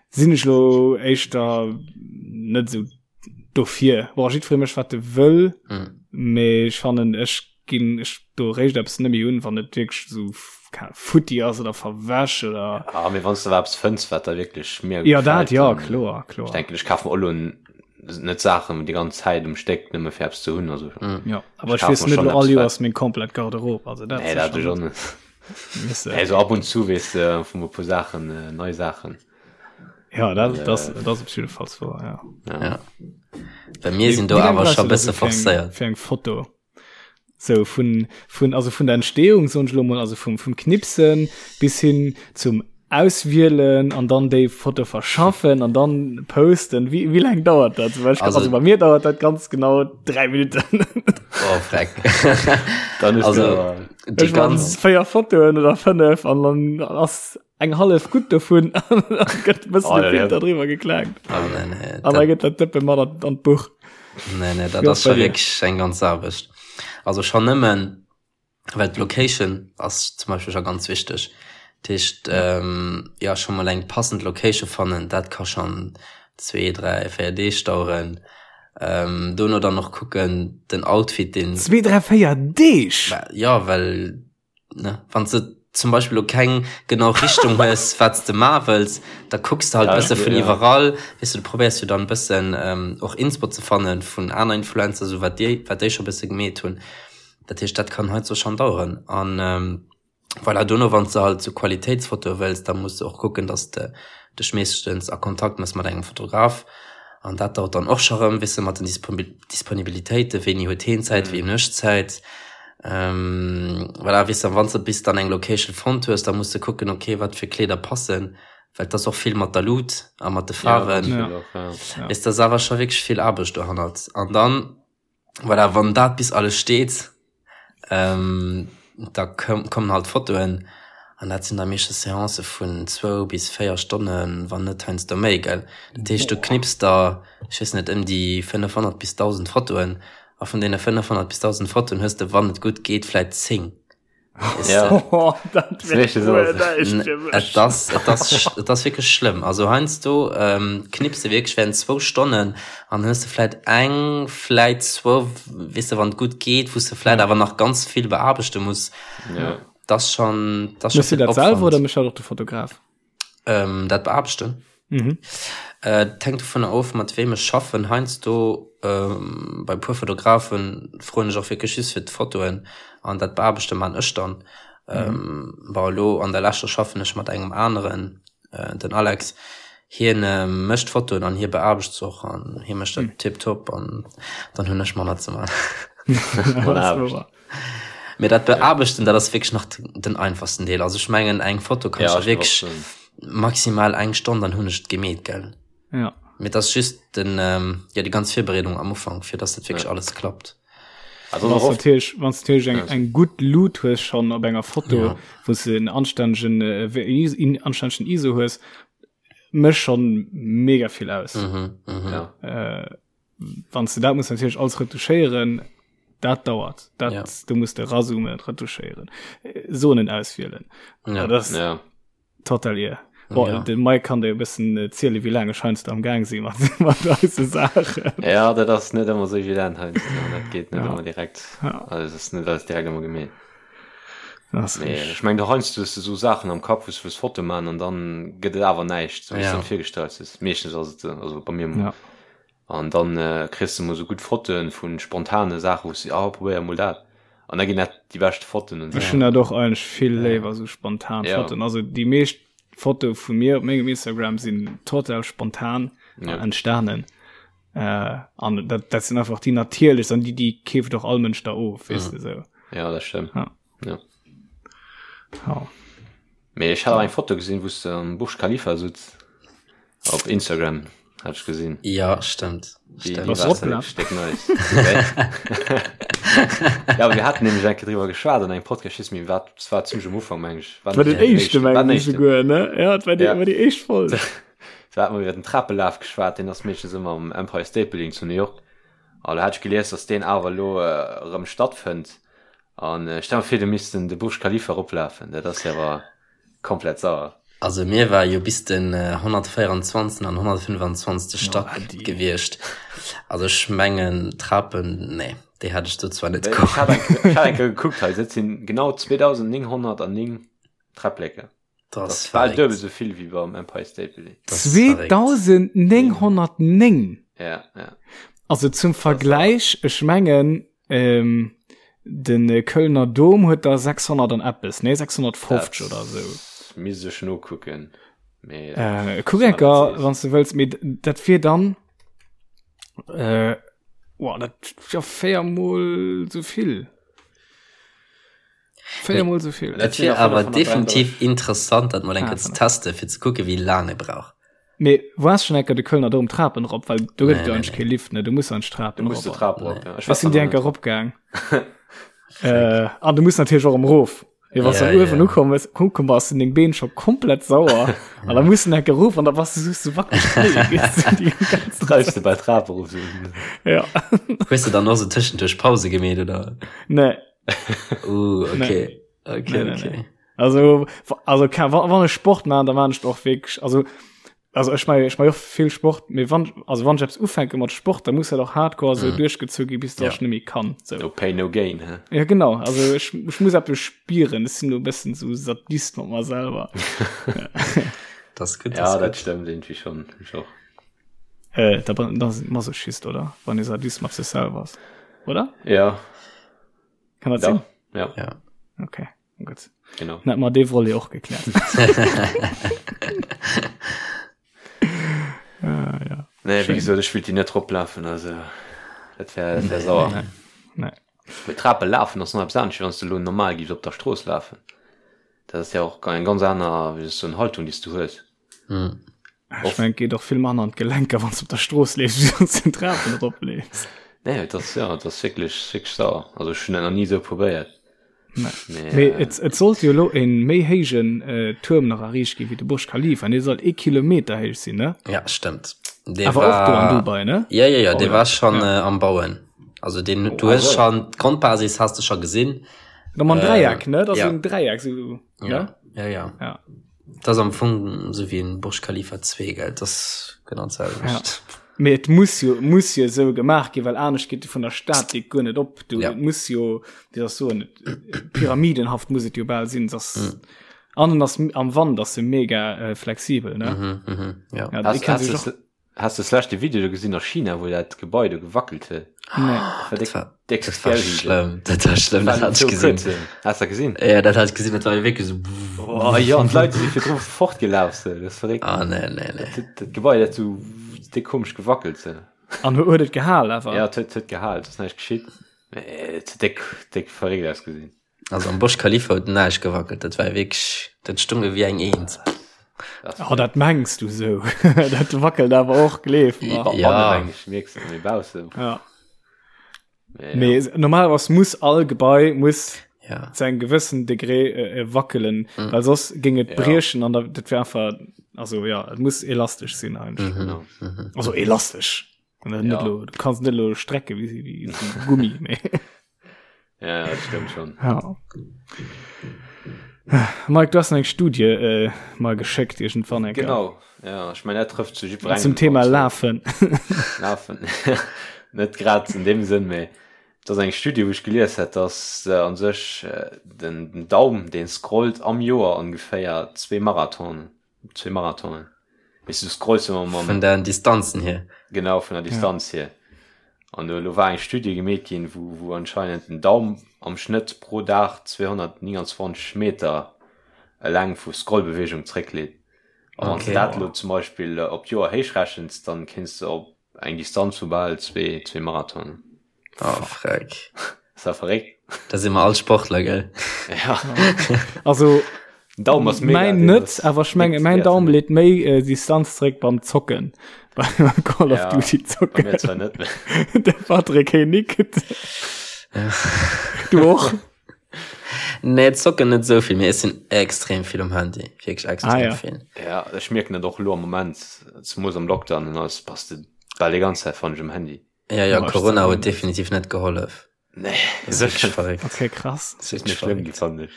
C: sinn ech lo éischter net sou dofir. Bon, jiddweree mécht wat e wëll, mm. mee ech fannen, ech ginn ech do réischt eppes net méi un, wann et wierklech sou futti ass oder verwäsch oder.
A: Ah, mee wann s de awer eppes fënns, wat der wierklech
C: mega Ja, dat ja, kloer, kloer.
A: Ech denken, ech kafe mer och lo net Saachen déi ganz Zäit um Stéck nëmme fir eppes ze hunn, also.
C: Mm. Ja, awer ech weess net lo all Joers meng komplett Garderobe, also
A: dat. Nee, dat ech och net. Also ab und zu wees de vun e puer Saachen äh, nei Saachen.
C: Ja dat, äh, das, das op jeden Fall so,
B: ja. Ja. ja. Bei mir sinn do awer scho bësse forcéiert.
C: Fir eng Foto. So vun, vun, also vun der Entstehung soen ech lo mol, also vum, vum Knipsen bis hin zum Auswielen an dann déi Foto verschaffen an dann posten. Wie, wie lang dauert dat? Zum Beispiel, also, also bei mir dauert dat ganz genau drei Minuten.
B: Oh, freck.
A: dann ist
B: also,
C: die ganz féier Fotoen oder fënnef an dann ass eng hallef gutt dovun gëtt bëssen oh, Filter drüber geklaakt.
B: Oh, nee, nee,
C: an da gëtt dat Dëppe mat an, an d'Buch.
B: Nee, nee, dat ass schon wirklich eng ganz Aarbecht. Also schon nëmmen well d'Location ass zum Beispiel schon ganz wichteg. Dat heescht, ähm, ja, schon mal eng passend Location fannen, dat ka schon zwee, dräi, véier Deeg daueren. Ähm, dono dann och kucken, den Outfit, den.
C: Zwee, dräi, véier Deeg?
B: Ja, well, ne, wann s de zum Beispill lo keng genau Richtung hues, wat s de maache wëlls, da kucks de halt e bësse vun iwwerall, weess de, du probéiers jo dann e bëssen och Inspo ze fannen vun aner Influencer, sou wat déi, wat déi scho bësse gemeet hunn. Dat heescht, dat kann heiansdo schonn daueren. An voilà, dono, wann s de halt sou Qualitéitsfotoe wëlls, da muss de och kucken, dass de dech meeschtens a Kontakt mëss mat engem Fotograf. An dat dauert dann och scho rëm, weess de, mat den Disponibilitéiten, wéini huet heen Zäit, wéi hunn ech Zäit. Voilà, weess de, wann s de bis dann eng Location fonnt hues, da muss de kucken, okay, wat fir Kleeder passen, well et ass och vill mat der Luut a mat de Faarwen. Weess de, ass awer scho wierklech vill Aarbecht dohannert. An dann Voilà, wann dat bis alles steet, ähm, da kommen halt Fotoen an dat sinn da meeschtens Seancë vun zwou bis véier Stonnen, wann net heiansdo méi, gell. Dat heescht, du knips der, ech weess net, ëm déi 500 bis 1.000 Fotoen a vun deene 500 bis 1.000 Fotoen hues de, wann et gutt geet, vläit 10.
A: Ja.
C: Oh, dat wär guer näischt fir mech.
B: Et ass, et ass, et ass wierklech schlëmm. Also heiansdo ähm, knips de wierklech während zwou Stonnen an hues de vläit eng, vläit zwou, weess de, wann et gutt geet, wou s de vläit awer nach ganz vill beaarbechte muss.
A: Ja.
B: Dat ass schon, dat ass schon
C: Méchs du
B: vill
C: dat selwer
B: Opwand.
C: oder mécht dat och de Fotograf?
B: Ähm, dat beaarbechten?
C: Mhm.
B: Äh, et hänkt dovunner of, mat weem ech schaffen. Heiansdo, ähm, bei e puer Fotografen froen ech och wierklech just fir d'Fotoen an dat Beaarbechte man ech dann. Ähm, bon, elo an der leschter schaffen ech mat engem aneren, äh, den Alex. Hien äh, mécht d'Fotoen an hie beaarbecht se och an hie mécht dat tiptop an dann hunn ech manner ze man.
A: Manner Aarbecht.
B: Mee dat Beaarbechten, dat ass wierklech nach den einfachsten Deel. Also ech mengen eng Foto kann ja, wierklech maximal eng Stonn, dann hunn ech et gemeet, gell?
C: Ja.
B: Mee dat ass just den, ähm, ja, déi ganz Virbereedung am Ufank, fir dass dat wierklech ja. alles klappt.
A: Also
C: Wann natierlech wann natierlech eng eng gutt Lut hues schon op enger Foto, ja. wou se en anstännegen äh, anstännegen ISO hues, mécht schon mega vill aus.
B: Mhm, mhm.
A: Ja.
C: Äh, wann du dat muss natierlech alles retuschéieren, dat dauert. Dat
B: Ja.
C: du musst de razoomen, retuschéieren, äh, Zonen auswielen.
B: Ja.
C: Dat ass
A: Ja.
C: total ir. Boah,
B: Ja.
C: De Mike kann dir e bëssen äh, ziele, wéi laang ech heiansdo am Gaang si mat, mat eise Saachen.
A: Ja, dat ass net ëmmer sou evident heiansdo. Dat geet net
C: Ja.
A: ëmmer direkt.
C: Ja.
A: Also, es ass net alles direkt ëmmer gemeet.
C: Das ass
A: Nee,
C: richtig.
A: ech meng, du heiansdo hues du sou Saachen am Kapp, wou s du wëlls Foto maachen an dann gëtt et awer näischt, sou wéi s
B: Ja.
A: du der virgestallt hues. Meeschtens ass et sou, also bei mir emol.
C: Ja.
A: An dann äh, kriss du mol sou gutt Fotoen vu spontane Saachen, wou s du, ah, probéier mol dat. An da ginn dat déi bescht Fotoen und
C: Ech
A: sou.
C: hunn dat och eigentlech vill léiwer, sou spontan
A: Ja.
C: Fotoen. Also déi meescht Fotoe vu mir op mengem Instagram sinn total spontan
A: Ja.
C: entstanen. Äh, an dat, dat sinn einfach déi natierlechst an déi, déi keeft och all Mënsch da of, weess de sou.
A: Ja, dat stëmmt.
C: Ja.
A: Ja.
C: Ja.
A: Mee ech hat awer eng Foto gesinn, wou s de am Burj Khalifa sutz. Op Instagram hat ech gesinn.
B: Ja, stëmmt.
A: Déi,
B: Stëmmt.
A: déi
C: Was
A: war
C: ropla?
A: stéck nice. Okay. ja, aber wir hatten nämlich eng Kéier driwwer geschwat an engem Podcast, ich mir war, das war ziemlich am Ufank, meng ich.
C: War den éischte
A: war
C: meng
A: den
C: ich
A: éischten.
C: souguer, ne? Ja, dat war déi,
A: Ja.
C: war déi éischt Folg.
A: Da hat man iwwer den Trapelaf geschwat, deen ass meeschtens ëmmer am Empire State Building zu New York. An da hat ech gelies, dass deen awer elo äh, erëm stattfënnt. An äh, stell mir vir, du misst den de Burj Khalifa eroplafen, dat ass jo awer komplett sauer.
B: Also mir war jo bis den 124. an 125. Stack gewiescht. Also ech mengen Trapen, nee, déi hätt ech do zwar net
A: Ech hat eng ech hat eng Kéier gekuckt hei, dat sinn genau 2909 Träpplecken.
B: Dat
A: Dat
B: ass
A: ass bal
B: verréckt.
A: duebel esou vill wéi beim Empire State Building.
B: Dat ass verréckt.
C: 2909!
A: Ja, ja.
C: Also zum Vergläich, ech mengen, ähm, den äh, Kölner Dom huet da 600 an eppes, nee 650
A: Dat
C: oder sou.
A: Misst ech nokucken. Mee,
C: Äh, kuck enker, wann du wëlls, mee dat wier dann äh, oh, dat ja véiermol sou vill. Véiermol sou vill.
B: Et wier awer definitiv interessant, dat mol eng Kéier ze testen, fir ze kucken, wéi laang e brauch.
C: Mee waars schon enker de Kölner Dom Trapen erop, well do gëtt et
B: Nee,
C: jo
B: nee,
C: eigentlech
B: nee.
C: kee Lift, ne? Du muss an d'Trapen
A: Du muss de
C: erop.
A: Trap erop, ja. Ech
C: Ech
A: war
C: sinn
A: zwar
C: déi
A: nach
C: enker
A: net.
C: eropgaang. Äh, an du muss natierlech och erëm erof. Mee wann s du
B: Ja,
C: dann uewen
B: ja.
C: ukomm bist, ukomm bass, sinn deng Been scho komplett sauer. An da muss du enker erof an da bass du just so wackeleg Knéie, weess du, déi ganze
A: Treibst
C: Zäit.
A: du bei Trap erof, so.
C: Ja.
B: Hues du dann och sou tëschenduerch Pause gemeet, oder?
C: Nee.
B: Uh, okay. Okay,
C: Nee, nee,
B: okay.
C: nee. Also, also wann, wann ech Sport man, dann man ech och wierklech, also, also ech mein, ech mein och vill Sport, mee wann, also wann ech eppes ufänke mat Sport, dann muss dat och hardcore sou
B: Mm.
C: duerchgezu gi, bis dass
B: Ja.
C: ech net méi kann, sou.
A: No pain, no gain, hä?
C: Ja, genau, also ech, ech muss eppes spieren, ech sinn do e bëssen sou Sadist mat mer selwer.
B: Das ist gut, das
A: Ja,
B: ist
A: dat
B: gut.
A: stëmmt irgendwie schon. Ech och.
C: Äh, da, da ass Masochist, oder? Wann ee Sadist mat sech selwer ass, oder?
A: Ja.
C: Kann dat
A: Ja.
C: sinn?
A: Ja.
B: Ja.
C: Okay, gut.
A: Genau.
C: Dann hätte mer dee Volet och gekläert. ah, ja.
A: Nee, wéi
C: Schön.
A: gesot, ech wëllt déi net eroplafen, also dat wär, dat wär sauer.
C: Nee. Nee.
A: Mee Trape lafen ass nach eppes anescht, wéi wann s du elo normal giffs op der Strooss lafen. Dat ass ja och eng ganz aner, wéi soll ech soen, Haltung, déi s du hues.
B: Mm.
C: Ech mein, et geet och vill manner an d'Gelenker, wann s du op der Strooss leefs, wéi wann s du den Trapen eropleefs.
A: Nee, et ass, ja, et ass wierklech, wierklech sauer. Also ech hunn dat nach ni esou probéiert.
C: Nee.
A: Mee,
C: Mee
A: äh,
C: et, et sollt jo elo e méi héijen äh, Tuerm nach erriicht ginn, wéi de Burj Khalifa. Dee soll ee Kilometer héich sinn, ne?
B: Ja, stëmmt. Dee
C: Awer och do an
B: war
C: Dubai, ne?
B: Ja, ja, ja,
C: Oh,
B: dee
C: ja.
B: war schon
C: Ja.
B: äh, am Bauen. Also den,
A: Oh,
B: du hues
A: also.
B: schon d'Grondbasis has du schon gesinn.
C: Da mam
B: Äh,
C: Dräieck, ne? Dat ass
B: ja.
C: esou en Dräieck, sou,
B: Ja,
C: ne?
B: ja, ja.
C: Ja.
B: Dat ass am Fong esou wéi en Burj Khalifa 2, gell? Dat ass genau d'selwecht.
C: Ja. Mee et muss jo, muss jo esou gemaach ginn, well anescht geet vun der Statik guer net op. Du,
B: Ja.
C: Et muss jo, wéi soll ech soen, pyramidenhaft muss et jo bal sinn. Dass, mm. An en ass am Wand ass se mega äh, flexibel, ne?
B: Mhm, mhm, ja.
C: Ja,
A: Hast,
C: déi kann
A: hast,
C: sech
A: du,
C: och,
A: hast du das leschte Video do gesinn a China, wou dat Gebai do gewackelt huet?
C: nee.
A: Dat war
B: Dat
A: déck,
B: war,
A: déck
B: dat war
A: scary.
B: schlëmm. Dat war schlëmm, dat
A: War
B: hat ich
A: so
B: gesinn.
A: kuerz, Hast du gesinn?
B: Ja, dat hat ich gesinn, dat war wierklech so.
A: Oh, ja, an d'Leit si virdru fortgelaf, so. Dat ass verréckt.
B: Ah, nee, nee, nee.
A: Dat, dat Gebai, dat so déck komesch gewackelt, so.
C: An huet et gehal awer?
A: Ja, et huet, huet gehal, et ass näischt geschitt. Mee et huet déck, déck verréckt ausgesinn.
B: Also am Burj Khalifa huet näischt gewackelt, dat war wierklech, dat stung ewéi eng Eent.
C: Oh, dat mengs du sou. Dat wackelt awer och, gleef mer.
B: Ja.
A: Mierks du, mee baussen.
C: Ja. Mee normalerweis muss all Gebai muss ja. zu engem gewëssen Degré äh, äh, wackelen, mhm. well soss géing et ja. briechen an dat wär einfach also ja, et muss elastesch sinn eigentlich. Mhm. Mhm. Also elastesch. Ja. Net lo, du kannst net lo strecke wie, wie so Gummi.
A: Mee. Ja, dat stimmt schon.
C: Ja. Mike, du hast eng Studie äh, mal geschickt irgendwann.
A: Genau. Ja, ich mein, dat trifft zu
C: jiddwerengem. Zum Thema Lafen.
A: Lafen. Net grad in dem Sënn, mee et ass eng Studie, wou ech gelies hat, dass äh, an sech äh, den, den Daum, deen scrollt am Joer ongeféier zwee Marathonen. Zwee Marathonen. Weess du, du scrollst ëmmer
B: mam. Vun den Distanzen hier.
A: Genau, vun der Distanz ja. hier. An elo war eng Studie gemeet ginn, wou, wou anscheinend den Daum am Schnëtt pro Dag 229 Meter eleng vu Scrollbewegung zréckleet. A wann s de dat elo zum Beispill op d'Joer héichrechens, dann kéints de op eng Distanz vu bal zwee, zwee Marathonen.
B: Oh, freck.
A: Ass dat verréckt?
B: Da si mer all Sportler, gell?
A: Ja.
C: Also,
A: Daum ass
C: mega. Mäin net, awer ech menge mäin Daum leet méi äh, Distanz zréck beim Zocken. Beim Call of Duty
A: zocken. Bei mir zwar net,
C: mee. De Patrick hee nickt. Du och?
B: Nee, zocken net esou vill, mee ech sinn extrem vill um Handy. Wierklech extrem
C: ah, ja.
B: vill.
A: Ja, ech mierken dat och elo am Moment, zemoos am Lockdown an alles, bass de bal déi ganz Zäit fannen ech um Handy.
B: Ja, ja, Corona huet definitiv net gehollef.
A: Nee, sécher
C: verréckt. Okay, krass.
A: Das ist schlimm gi fand ech.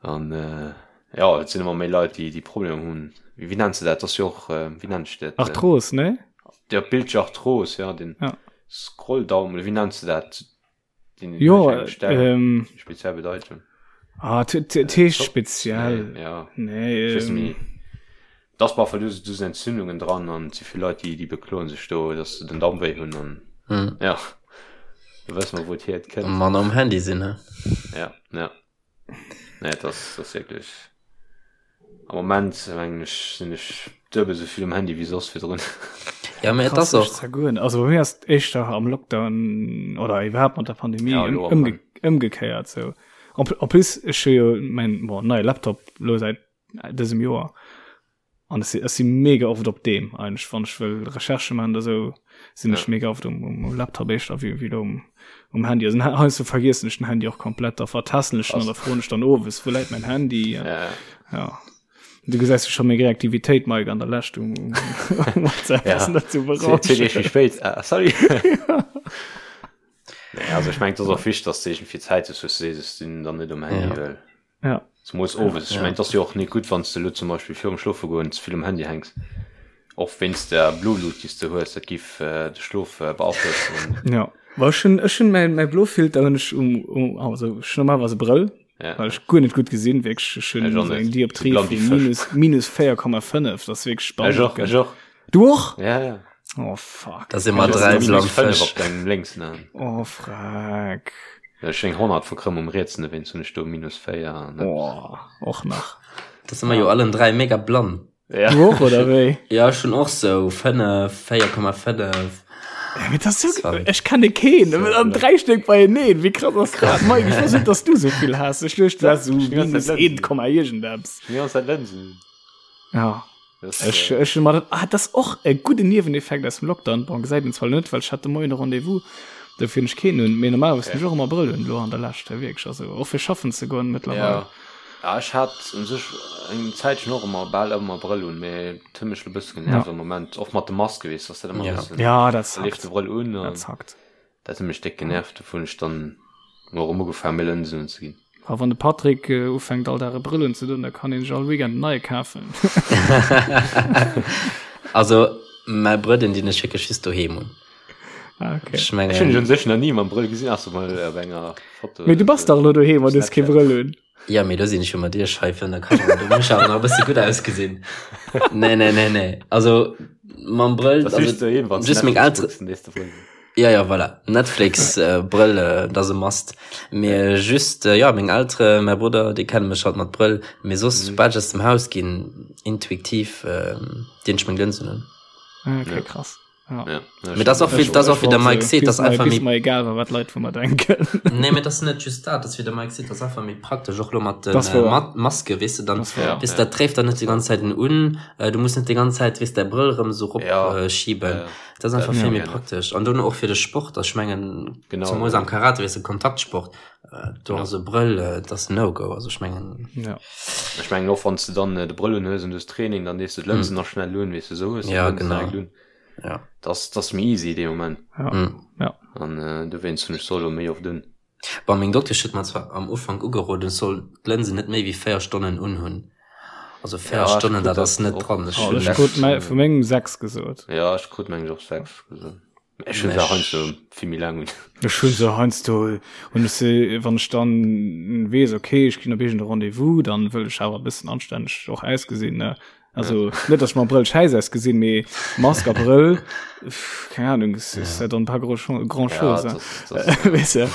A: An äh, ja, et sinn ëmmer méi Leit, déi déi Problemer hunn. Wéi, wéi nenns de dat? Das jo och, äh, wéi nennt sech dat?
C: Arthros, ne?
A: Ja, Bildscharthros, ja, den
C: ja.
A: Scrolldaum, oder wéi nenns de dat?
C: Jo, ähm,
A: speziell Bedeutung.
C: Ah, heescht speziell.
A: Nee, ja.
C: Nee, ähm,
A: das war du du sind Entzündungen dran an zu viel Leute die die bekloen sich do dass se den Damm wéi hunn an
B: hm.
A: ja du wëss mal wo hier
B: kënnt. Mann am Handy sinn
A: ne? Ja ja nee das das wirklich Am Moment mengen ech sinn ech duebel sou vill um Handy wéi soss virdrun.
B: Ja, mee et ass och.
C: Zergoen. Also bei mir ass et éischter am Lockdown oder iwwerhaapt mat der Pandemie
A: Ja, elo am
C: ëmge ëmgekéiert sou. En en plus ech hu jo mäin bon neie Laptop elo säit dësem Joer an ech si ech si mega oft op deem eigentlech wann ech wëll Recherchë maachen oder sou sinn ech
A: Ja.
C: mega oft um um Laptop éischter wéi wéi elo um um Handy. Also heiansdo vergiessen ech den Handy och komplett, da vertassen ech en an da froen ech dann owes, wou läit mäin Handy?
A: Ja, ja.
C: Ja. Du gesäis jo scho meng Reaktivitéit, Mike, an der Lescht um, um WhatsApp
A: Ja.
C: ass net zu
A: Zwee Deeg méi
C: berauschen.
A: spéit. Ah, sorry. Nee, also ech mengen, et ass och wichteg, dass de iergendwéi Zäit hues, wou s de sees, ech sinn dann net um Handy,
B: Ja.
A: well
C: Ja.
A: Zumols owes. Ech
B: Ja.
A: mengen, et ass jo och net gutt, wann s de elo zum Beispill virum Schlofegoen ze vill um Handy hänks. Och wéinst der Blulut, déi s de hues, dat giff de Schlof beaflossen.
C: Ja. Well ech hunn, ech hunn mäin, mäi Blofilter hunn ech um, um, also ech hunn normalerweis e Brëll,
A: Ja.
C: well ech guer net gutt gesinn, wierklech. Ech hunn
A: Ech och
C: esou
A: net.
C: eng Dioptrie
A: Sou blann
C: vu
A: wéi Fësch.
C: minus, minus 4,5, dat ass wierklech
A: Ech
C: spannend.
A: och, ech och.
C: Du och?
A: Ja, ja.
C: Oh fuck.
B: Da si mer
A: Ech
B: dräi
A: hunn
B: blann
A: minus 5
B: Fësch.
A: op dengem lénksen Aen.
C: Oh freck.
A: Ech eng 100 verkrëmm um rietsen, dowéinst hunn ech do minus 4 an eppes.
C: Oh, och nach.
B: Da si mer jo allen 3 mega blann.
A: Ja.
C: Du och, oder wéi?
B: Ja, ech hunn och sou 5, 4,5.
C: Ja, mee das ist so,
B: Sorry.
C: ech kenne keen, an 3 Stéck beieneen. Wéi krass ass dat? Mike, ech wosst net, dass du sou vill has. Ech duecht, du häss sou
A: Ech hunn die ganze
C: minus
A: Zeit
C: 1, Komma iergendeppes.
A: Ech hunn die ganze Zeit Lënsen.
C: Ja.
A: Das,
C: Ech,
A: äh,
C: ech hunn mer dat, ah, das och e gudden Nieweneffekt aus dem Lockdown. Bon, gesäit een zwar net, well ech hat de Moien e Rendez-vous, dofir hunn ech keen un. Mee normalerweis hunn ech och ëmmer Brëll un, elo an der Lescht, wierklech. Also och fir schaffen ze goen mëttlerweil.
A: Ja. Ja, ech hat un sech eng Zäitchen och ëmmer, bal ëmmer Brëll un, mee et huet mech elo e bësse genervt
C: Ja.
A: am Moment, och mat de Maske, weess de, ass dat ëmmer e
B: Ja.
A: bëssen,
C: Ja, dat
A: da leeft
C: zackt.
A: de Brëll un an
C: Dat zackt.
A: dat huet mech déck genervt, dofir hunn ech dann mol erëm ugefaangen, méi Lënsen unzeginn.
C: A wann de Patrick ufänkt all Dag e Brëll unzedoen, da kann een sech all Weekend en neie kafen.
B: Also mäi Brëll, deen dinn ech wierklech just doheem un.
C: Ah, okay.
B: Ech
A: Ech hunn dech
B: mengen,
A: un sech nach ni mam Brëll gesinn, ausser mol op enger Foto.
C: Mee du bass dach elo doheem an hues kee Brëll un.
B: Ja, mee do sinn ech jo mat iech hei virun der Kamera, do muss ech awer nach e bësse gutt ausgesinn. Nee, nee, nee, nee. Also mam Brëll,
A: Das
B: also
A: just doheem, wann
B: just meng
A: Netflix
B: Eltere
A: kucks, den nächste Brëll.
B: Ja, ja, voilà. Netflix, äh, Brëll, äh, dat ass e Must. Mee just, äh, ja, meng Eltere, mäi Brudder, déi kenne mech halt mat Brëll. Mee soss, soubal ech aus dem Haus ginn, intuitiv, äh, dinn ech meng Lënsen un.
C: Ah, okay,
A: Ja.
C: krass.
B: Ja. Ja, Mee das och wie, das och wie der Mike seet, das einfach
C: méi mir egal war, wat Leit vu mer denken.
B: Nee, mee das net just dat, das wie der Mike seet, das einfach méi praktesch och lo mat den äh, mat Maske, weess de dann ja, weess ja. dat tréift dann net die ganze Zäit un, äh, du muss net die ganze Zäit weess däi Brëll rëm so rop ja. äh, schieben. Ja. Das einfach vill méi praktesch an dono och fir de Sport, ech mengen genau, zemools am Karate weess de Kontaktsport, äh, do ass e Brëll äh, das no go, also ech mengen
A: ja. Ech mengen och wann s de dann äh, de Brëll un hues an du hues Training, dann dees de d'Lënsen mm. nach schnell un, weess de sou hues
B: ja, genau.
A: Un. Ja. Das, das méi easy dee Moment.
C: Ja. Mm. Ja.
A: An äh, dowéinst hunn ech se elo méi oft un.
B: Bon, meng Doktesch huet mer zwar am Ufank ugeroden, ech soll d'Lënsen net méi wéi 4 Stonnen unhunn. Also 4
A: Ja, ech
B: Stonnen,
A: krut
B: dat
A: dat
B: ass net
A: och.
B: dran. Ech
C: Oh,
B: hunn
C: ech krut mei, vu mengem 6 gesot.
A: Ja, ech krut meng och 6 gesot. Ech hunn
B: Mech.
A: se heiansdo vill méi laang un.
C: Ech hunn se heiansdo, hunn ech se, wann ech dann weess, okay, ech ginn op iergend e Rendez-vous, dann wëll ech awer e bëssen anstänneg och ausgesinn, ne. Also net, dass ech mam Brëll schäiss ausgesinn, mee Mask a Brëll, pff, keng Ahnung, es ist ja dann pas gros grand chose,
A: Ja,
C: hein.
A: das, das,
C: Weess de.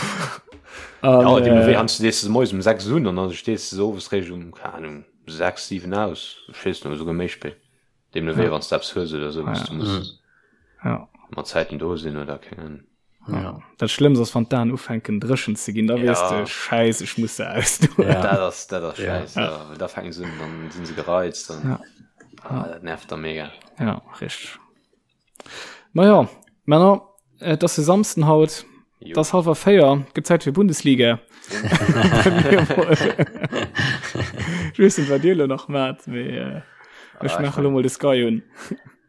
A: ja,
C: An,
A: deemno wéi
C: äh,
A: heiansdo dees de se moies um 6 un an dann stees de se owes réischt um, keng Ahnung, 6, 7 aus. Ech weess net, oder souguer méi spéit. Deemno wéi,
C: ja,
A: wann s de eppes hues oder sou, wou s
C: ja,
A: du muss
C: ja.
A: mat Zäiten do sinn oder keng Ahnung.
C: Ja. Dat Schlëmmst ass, wann d'Aen ufänken dréchen ze ginn, da weess de,
A: Ja,
C: Schäiss, ech muss se ausdoen.
B: Ja.
A: dat ass, dat ass
B: Ja.
A: schäiss,
C: Ja.
A: ja, well da fänken se un, dann sinn se gereizt an
C: Ja.
A: ah, dat nervt da mega.
C: Ja, richteg. Naja, Männer, et ass e Samsden haut,
A: Jo.
C: et ass hallwer 4, gëtt Zäit fir Bundesliga. Ech weess net, wat dir elo nach maacht, mee äh, ech
A: Ah, ech
C: maache lo
A: meng
C: mol de Sky un.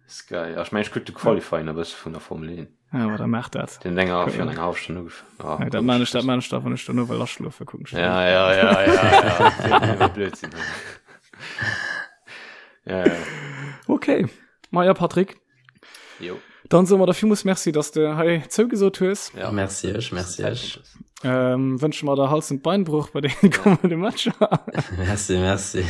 A: Sky, ah, ech meng, ech kuck de Qualifying e bësse vun der Formel 1.
C: Ja, aber da macht dat.
A: Den Denger fir eng half Stonn ugefangen. Ah,
C: Ja, dat man ich, dat man ich da, wann ich dono well aschlofe kucken.
A: Ja, ja, ja, ja, ja. Blödsinn. Ja, ja.
C: Okay. Ma ja, Patrick.
A: Jo.
C: Dann soe mer der villmools Merci, dass de hei zougesot hues.
A: Ja.
B: Merci iech, merci iech.
C: Ähm, wënsche mer der Hals- und Beinbruch bei den kommende Matcher.
B: Merci, merci.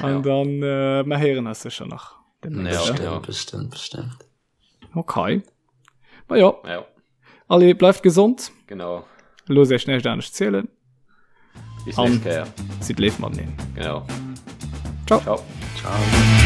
C: An
A: Ja.
C: dann äh, mer héieren eis sécher nach. demnächst,
A: Ja,
C: ne?
B: Bestimmt,
A: ja.
B: bestimmt, bestimmt.
C: Okay. Ma ja,
A: Ja,
C: allez, bleift gesond.
A: genau.
C: Loosst iech näischt anescht zielen.
A: Bis
C: An
A: nächst Kéier.
C: sidd léif mateneen.
A: Genau.
C: Ciao.
A: Ciao.
B: Ciao.